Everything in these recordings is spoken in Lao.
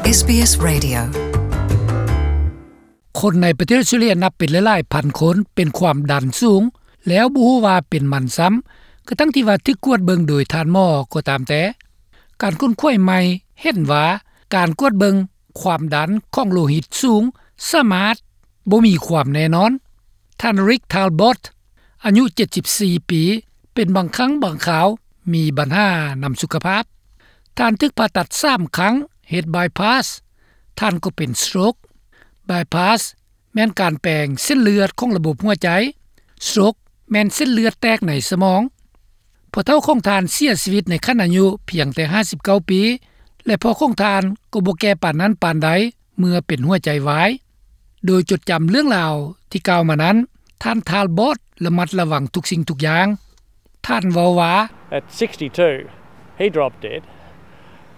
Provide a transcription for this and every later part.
ເອສບີເອສ Radio. ຄົນໃນປະເທດອອສເຕຣເລຍນັບເປັນຫຼາຍໆພັນຄົນເປັນຄວາມດັນສູງ ແລ້ວບໍ່ຮູ້ວ່າເປັນມັນຊ້ຳ ກະທັ່ງທີ່ວ່າຖືກກວດເບິ່ງໂດຍທ່ານໝໍກໍຕາມແຕ່. ການຄົ້ນຄວ້າໃໝ່ເຫັນວ່າ ການກວດເບິ່ງຄວາມດັນຂອງໂລຫິດສູງສາມາດບໍ່ມີຄວາມແນ່ນອນ. ທ່ານ Rick Talbot ອາຍຸເຈັດສິບສີ່ປີ ເປັນບາງຄັ້ງບາງຄາວມີບັນຫານຳສຸຂະພາບ. ທ່ານຖືກຜ່າຕັດສາມຄັ້ງ ເຮັດ bypass. ທ່ານກໍເປັນ stroke. Bypass ແມ່ນການແປງເສັ້ນເລືອດຂອງລະບົບຫົວໃຈ. Stroke ແມ່ນເສັ້ນເລືອດແຕກໃນສະໝອງ. ພໍ່ເຖົ້າຂອງທ່ານເສຍຊີວິດໃນຂັ້ນອາຍຸພຽງແຕ່ຫ້າສິບເກົ້າປີ ແລະ ພໍ່ຂອງທ່ານກໍບໍ່ແກ່ປານນັ້ນປານໃດເມື່ອເປັນຫົວໃຈວາຍ. ໂດຍຈົດຈຳເລື່ອງລາວທີ່ກ່າວມານັ້ນ, ທ່ານ Talbot ລະມັດລະວັງທຸກສິ່ງທຸກຢ່າງ. ທ່ານເວົ້າວ່າ, At sixty-two, he dropped dead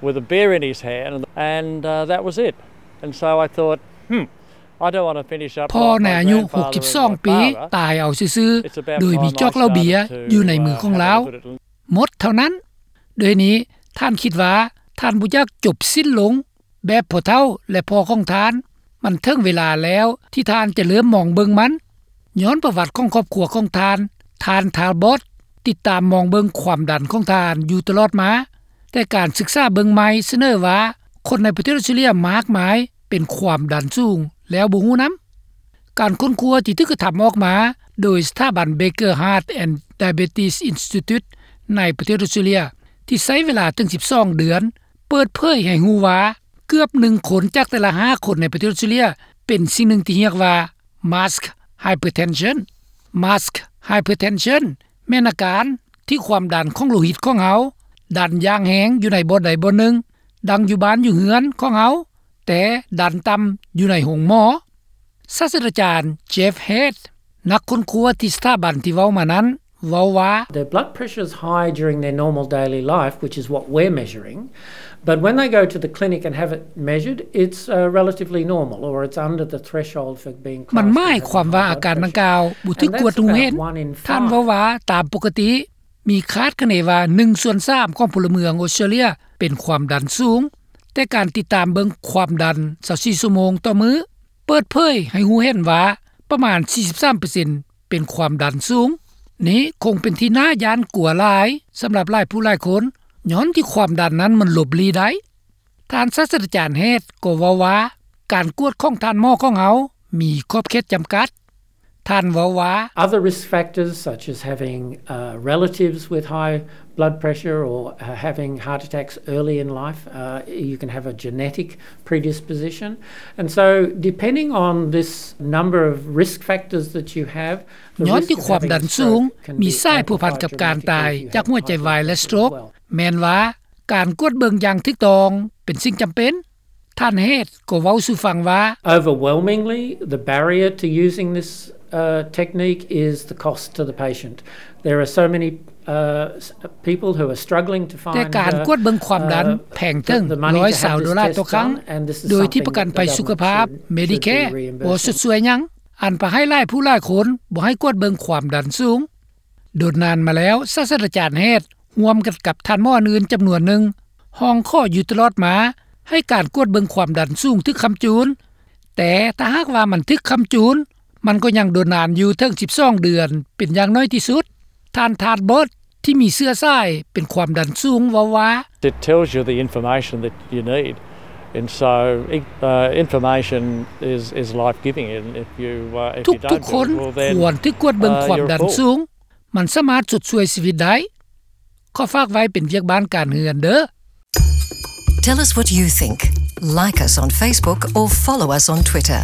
with a beer in his hand, and, uh, that was it. And so I thought, hmm, I don't want to finish up like my grandfather and my father. ພໍ່ໃນອາຍຸຫົກສິບສອງປີ ຕາຍເອົາຊື່ໆ ໂດຍມີຈອກເຫຼົ້າເບຍຢູ່ໃນມືຂອງລາວ. ໝົດເທົ່ານັ້ນ. ໂດຍນີ້ ທ່ານຄິດວ່າ ທ່ານບໍ່ຢາກຈົບສິ້ນລົງ ແບບພໍ່ເຖົ້າ ແລະ ພໍ່ຂອງທ່ານ. ມັນເຖິງເວລາແລ້ວທີ່ທ່ານຈະເລີ່ມມອງເບິ່ງມັນ. ຍ້ອນປະຫວັດຂອງຄອບຄົວຂອງທ່ານ, ທ່ານ Talbot ຕິດຕາມມອງເບິ່ງຄວາມດັນຂອງທ່ານຢູ່ຕະຫຼອດມາ. ແຕ່ການສຶກສາເບິ່ງໃໝ່ສະເໜີວ່າ ຄົນໃນປະເທດອອສເຕຣເລຍມາກມາຍເປັນຄວາມດັນສູງແລ້ວບໍ່ຮູ້ນຳ. ການຄົ້ນຄວ້າທີ່ຖືກກະທຳອອກມາໂດຍສະຖາບັນ Baker Heart and Diabetes Institute ໃນປະເທດອອສເຕຣເລຍ ທີ່ໃຊ້ເວລາເຖິງສິບສອງເດືອນ ເປີດເຜີຍໃຫ້ຮູ້ວ່າ ເກືອບໜຶ່ງຄົນຈາກແຕ່ລະຫ້າຄົນໃນປະເທດອອສເຕຣເລຍ ເປັນສິ່ງໜຶ່ງທີ່ຮຽກວ່າ mask hypertension. Mask hypertension ແມ່ນອາການທີ່ຄວາມດັນຂອງໂລຫິດຂອງເຮົາດັນຢ່າງແຮງຢູ່ໃນບ່ອນໃດບ່ອນໜຶ່ງ, ດັ່ງຢູ່ບ້ານຢູ່ເຮືອນຂອງເຮົາ, ແຕ່ດັນຕ່ຳຢູ່ໃນໂຮງໝໍ. ສາດສະດາຈານ Jeff Head ນັກຄົ້ນຄວ້າທີ່ສະຖາບັນທີ່ເວົ້າມານັ້ນ ເວົ້າວ່າ, The blood pressure is high during their normal daily life, which is what we're measuring, but when they go to the clinic and have it measured, it's, uh, relatively normal, or it's under the threshold for being classed as having high blood pressure. ມັນໝາຍຄວາມວ່າອາການດັ່ງກ່າວບໍ່ຖືກກວດຮູ້ເຫັນ. ທ່ານເວົ້າວ່າ ຕາມປົກກະຕິ ມີຄາດຄະເນວ່າໜຶ່ງສ່ວນສາມຂອງພົນລະເມືອງອອສເຕຣເລຍເປັນຄວາມດັນສູງ, ແຕ່ການຕິດຕາມເບິ່ງຄວາມດັນຊາວສີ່ຊົ່ວໂມງຕໍ່ມື້ ເປີດເຜີຍໃຫ້ຮູ້ເຫັນວ່າປະມານສີ່ສິບສາມເປີເຊັນເປັນຄວາມດັນສູງ. ນີ້ຄົງເປັນທີ່ໜ້າຢ້ານກົວຫຼາຍສຳລັບຫຼາຍຜູ້ຫຼາຍຄົນ, ຍ້ອນທີ່ຄວາມດັນນັ້ນມັນຫຼົບຫຼີ່ໄດ້. ທ່ານສາດສະດາຈານ Head ກໍເວົ້າວ່າ ການກວດຂອງທ່ານໝໍຂອງເຮົາມີຂອບເຂດຈຳກັດ. ທ່ານເວົ້າວ່າ, Other risk factors, such as having, uh, relatives with high blood pressure or, uh, having heart attacks early in life, uh, you can have a genetic predisposition. And so, depending on this number of risk factors that you have, the risk of having a stroke can be amplified dramatically if you have high blood pressure. ຍ້ອນທີ່ຄວາມດັນສູງມີສາຍພົວພັນກັບການຕາຍຈາກຫົວໃຈວາຍ ແລະ stroke. ແມ່ນວ່າ ການກວດເບິ່ງຢ່າງຖືກຕ້ອງເປັນສິ່ງຈຳເປັນ. ທ່ານ Head ກໍເວົ້າສູ່ຟັງວ່າ, Overwhelmingly, the barrier to using this, uh, technique is the cost to the patient. There are so many, uh, people who are struggling to find, uh, the money to have this test done, and this is something that the money to have this test done, and this is something that the government should be doing a better job of. ແຕ່ການກວດເບິ່ງຄວາມດັນແພງເຖິງຮ້ອຍຊາວໂດລາຕໍ່ຄັ້ງ, ໂດຍທີ່ປະກັນໄພສຸຂະພາບ Medicare ບໍ່ຊົດຊ່ວຍຫຍັງ, ອັນພາໃຫ້ຫຼາຍຜູ້ຫຼາຍຄົນບໍ່ໃຫ້ກວດເບິ່ງຄວາມດັນສູງ. ດົນນານມາແລ້ວ, ສາດສະດາຈານ Head ຮ່ວມກັນກັບທ່ານໝໍອື່ນໆຈຳນວນໜຶ່ງ ຮ້ອງຂໍຢູ່ຕະຫຼອດມາໃຫ້ການກວດເບິ່ງຄວາມດັນສູງຖືກຄ້ຳຈູນ, ແຕ່ຖ້າຫາກວ່າມັນຖືກຄ້ຳຈູນ, ມັນກໍຍັງດົນນານຢູ່ເຖິງສິບສອງເດືອນເປັນຢ່າງໜ້ອຍທີ່ສຸດ. ທ່ານ Talbot ທີ່ມີເຊື້ອສາຍເປັນຄວາມດັນສູງເວົ້າວ່າ, It tells you the information that you need, and so, uh, information is, is life-giving, and if you, uh, if you don't do it, well, then, uh, you're a fool. ທຸກໆຄົນຄວນຖືກກວດເບິ່ງຄວາມດັນສູງ. ມັນສາມາດຊົດຊ່ວຍຊີວິດໄດ້. ຂໍຝາກໄວ້ເປັນວຽກບ້ານການເຮືອນເດີ້. Tell us what you think. Like us on Facebook or follow us on Twitter.